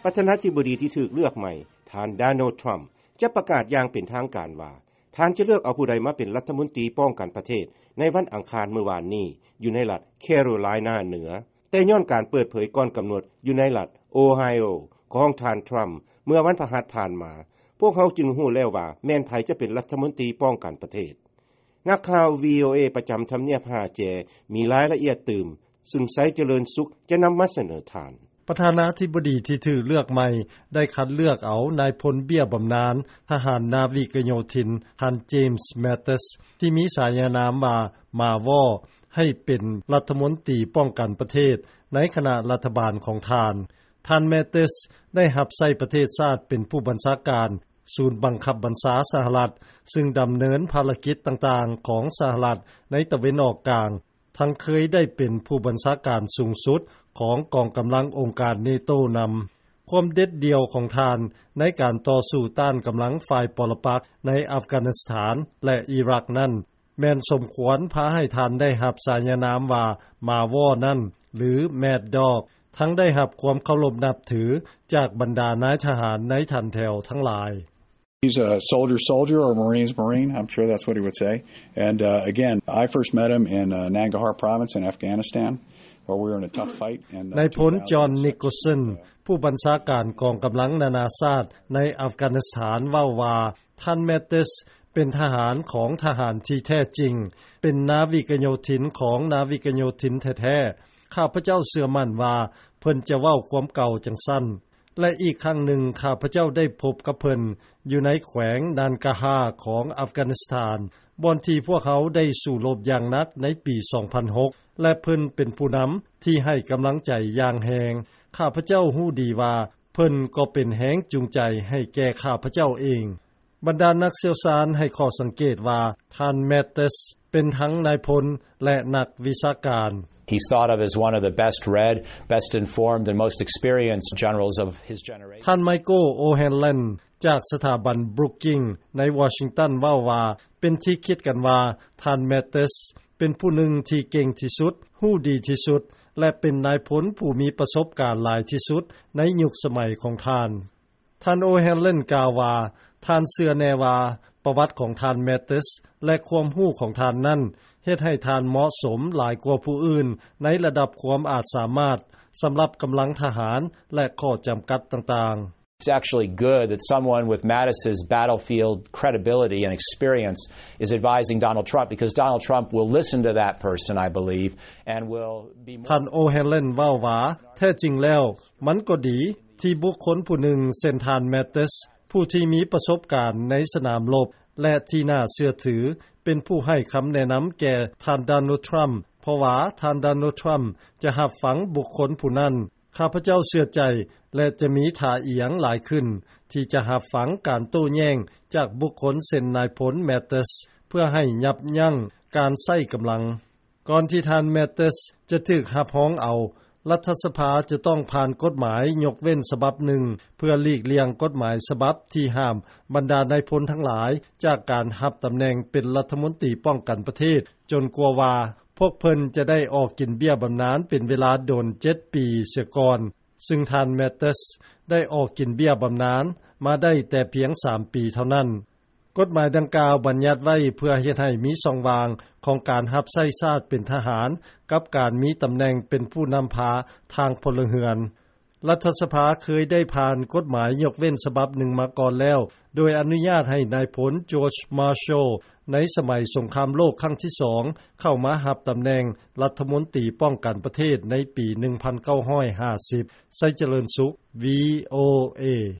ປະທານາທິບໍດີທີ່ຖືກເລືອກໃໝ່ ທ່ານ Donald Trump ຈະປະກາດຢ່າງເປັນທາງການວ່າ ທ່ານຈະເລືອກເອົາຜູ້ໃດມາເປັນລັດຖະມົນຕີປ້ອງກັນປະເທດ ໃນວັນອັງຄານມື້ວານນີ້ ຢູ່ໃນລັດ Carolina ເໜືອ. ແຕ່ຍ້ອນການເປີດເຜີຍກ່ອນກຳນົດຢູ່ໃນລັດ Ohio ຂອງທ່ານ Trump ເມື່ອວັນພະຫັດຜ່ານມາ, ພວກເຮົາຈຶ່ງຮູ້ແລ້ວວ່າແມ່ນໃຜຈະເປັນລັດຖະມົນຕີປ້ອງກັນປະເທດ. ນັກຂ່າວ VOA ປະຈຳທຳນຽບຫ້າແຈ ມີລາຍລະອຽດຕື່ມ ຊຶ່ງ ໄຊຈະເລີນສຸກ ຈະນຳມາສະເໜີທ່ານ. ປະທານາທິບໍດີທີ່ຖືກເລືອກໃໝ່ ໄດ້ຄັດເລືອກເອົານາຍພົນເບ້ຍບຳນານ ທະຫານນາວິກະໂຍທິນ ທ່ານ James Mattis ທີ່ມີສາຍານາມວ່າ ໝາວໍ ໃຫ້ເປັນລັດຖະມົນຕີປ້ອງກັນປະເທດ ໃນຄະນະລັດຖະບານຂອງທ່ານ. ທ່ານ Mattis ໄດ້ຮັບໃຊ້ປະເທດຊາດເປັນຜູ້ບັນຊາການສູນບັງຄັບບັນຊາສະຫະລັດ, ຊຶ່ງດຳເນີນພາລະກິດຕ່າງໆຂອງສະຫະລັດໃນຕາເວັນອອກກາງ, ທັງເຄີຍໄດ້ເປັນຜູ້ບັນຊາການສູງສຸດຂອງກອງກຳລັງອົງການ NATO ນຳ. ຄວາມເດັດດ່ຽວຂອງທ່ານໃນການຕໍ່ສູ້ຕ້ານກຳລັງຝ່າຍປໍລະປັກໃນອັຟການິສຖານ ແລະ ອີຣັກນັ້ນ ແມ່ນສົມຄວນພາໃຫ້ທ່ານໄດ້ຮັບສາຍານາມວ່າ ໝາວໍນັ້ນ ຫຼື Mad Dog, ທັງໄດ້ຮັບຄວາມເຄົາລົບນັບຖືຈາກບັນດານາຍທະຫານໃນຖັນແຖວທັງຫຼາຍ. He's a soldier, soldier, or Marine's Marine. I'm sure that's what he would say. And, uh, again, I first met him in, uh, Nangarhar Province in Afghanistan, where we were in a tough fight. And, uh, ນາຍພົນ John Nicholson ຜູ້ບັນຊາການກອງກຳລັງນານາຊາດໃນອັຟການິສຖານ ເວົ້າວ່າ ທ່ານ Mattis ເປັນທະຫານຂອງທະຫານທີ່ແທ້ຈິງ, ເປັນນາວິກະໂຍທິນຂອງນາວິກະໂຍທິນແທ້ໆ. ຂ້າພະເຈົ້າເຊື່ອໝັ້ນວ່າເພິ່ນຈະເວົ້າຄວາມເກົ່າຈັ່ງຊັ້ນ. ແລະ ອີກຄັ້ງໜຶ່ງ ຂ້າພະເຈົ້າໄດ້ພົບກັບເພິ່ນຢູ່ໃນແຂວງ Nangarhar ຂອງອັຟການິສຖານ, ບ່ອນທີ່ພວກເຮົາໄດ້ສູ້ລົບຢ່າງໜັກໃນປີສອງພັນຫົກ ແລະ ເພິ່ນເປັນຜູ້ນຳທີ່ໃຫ້ກຳລັງໃຈຢ່າງແຮງ. ຂ້າພະເຈົ້າຮູ້ດີວ່າເພິ່ນກໍເປັນແຮງຈູງໃຈໃຫ້ແກ່ຂ້າພະເຈົ້າເອງ. ບັນດານັກຊ່ຽວຊານໃຫ້ຂໍ້ສັງເກດວ່າ ທ່ານ Mattis ເປັນທັງນາຍພົນ ແລະ ນັກວິຊາການ. He's thought of as one of the best read, best informed, and most experienced generals of his generation. ທ່ານ Michael O'Hanlon ຈາກສະຖາບັນ Brookings ໃນວໍຊິງຕັນ ເວົ້າວ່າ ເປັນທີ່ຄິດກັນວ່າ ທ່ານ Mattis ເປັນຜູ້ໜຶ່ງທີ່ເກັ່ງທີ່ສຸດ, ຮູ້ດີທີ່ສຸດ ແລະ ເປັນນາຍພົນຜູ້ມີປະສົບການຫຼາຍທີ່ສຸດໃນຍຸກສະໄໝຂອງທ່ານ. ທ່ານ O'Hanlon ກ່າວວ່າ ທ່ານເຊື່ອແນ່ວ່າປະຫວັດຂອງທ່ານ Mattis ແລະ ຄວາມຮູ້ຂອງທ່ານນັ້ນ ເຮັດໃຫ້ທ່ານເໝາະສົມຫຼາຍກວ່າຜູ້ອື່ນໃນລະດັບຄວາມອາດສາມາດ ສຳລັບກຳລັງທະຫານ ແລະ ຂໍ້ຈຳກັດຕ່າງໆ. It's actually good that someone with Mattis's battlefield credibility and experience is advising Donald Trump, because Donald Trump will listen to that person, I believe, and will be more. ທ່ານ O'Hanlon ເວົ້າວ່າ ແທ້ຈິງແລ້ວ ມັນກໍດີທີ່ບຸກຄົນຜູ້ໜຶ່ງເຊັ່ນທ່ານ Mattis ຜູ້ທີ່ມີປະສົບການໃນສະໜາມລົບ ແລະ ທີ່ໜ້າເຊື່ອຖື ເປັນຜູ້ໃຫ້ຄຳແນະນຳແກ່ທ່ານ Donald Trump, ເພາະວ່າທ່ານ Donald Trump ຈະຮັບຟັງບຸກຄົນຜູ້ນັ້ນ. ຂ້າພະເຈົ້າເຊື່ອໃຈ ແລະ ຈະມີທ່າອຽງຫຼາຍຂຶ້ນ ທີ່ຈະຮັບຟັງການໂຕ້ແຍ້ງຈາກບຸກຄົນເຊັ່ນນາຍພົນ Mattis ເພື່ອໃຫ້ຍັບຢັ້ງການໃຊ້ກຳລັງ. ກ່ອນທີ່ທ່ານ Mattis ຈະຖືກຮັບຮອງເອົາ, ລັດຖະສະພາຈະຕ້ອງຜ່ານກົດໝາຍຍົກເວັ້ນສະບັບໜຶ່ງ ເພື່ອຫຼີກລ່ຽງກົດໝາຍສະບັບທີ່ຫ້າມບັນດານາຍພົນທັງຫຼາຍຈາກການຮັບຕຳແໜ່ງເປັນລັດຖະມົນຕີປ້ອງກັນປະເທດ, ຈົນກວ່າວ່າພວກເພິ່ນຈະໄດ້ອອກກິນເບ້ຍບຳນານເປັນເວລາດົນເຈັດປີເສຍກ່ອນ, ຊຶ່ງທ່ານ Mattis ໄດ້ອອກກິນເບ້ຍບຳນານມາໄດ້ແຕ່ພຽງສາມປີເທົ່ານັ້ນ. ກົດໝາຍດັ່ງກ່າວບັນຍັດໄວ້ເພື່ອເຮັດໃຫ້ມີຊ່ອງວ່າງຂອງການຮັບໃຊ້ຊາດເປັນທະຫານ ກັບການມີຕຳແໜ່ງເປັນຜູ້ນຳພາທາງພົນລະເຮືອນ. ລັດຖະສະພາເຄີຍໄດ້ຜ່ານກົດໝາຍຍົກເວັ້ນສະບັບໜຶ່ງມາກ່ອນແລ້ວ, ໂດຍອະນຸຍາດໃຫ້ນາຍພົນ George Marshall ໃນສະໄໝສົງຄາມໂລກຄັ້ງທີສອງ ເຂົ້າມາຮັບຕຳແໜ່ງລັດຖະມົນຕີປ້ອງກັນປະເທດໃນປີໜຶ່ງພັນເກົ້າຮ້ອຍຫ້າສິບ. ໄຊຈະເລີນສຸກ VOA.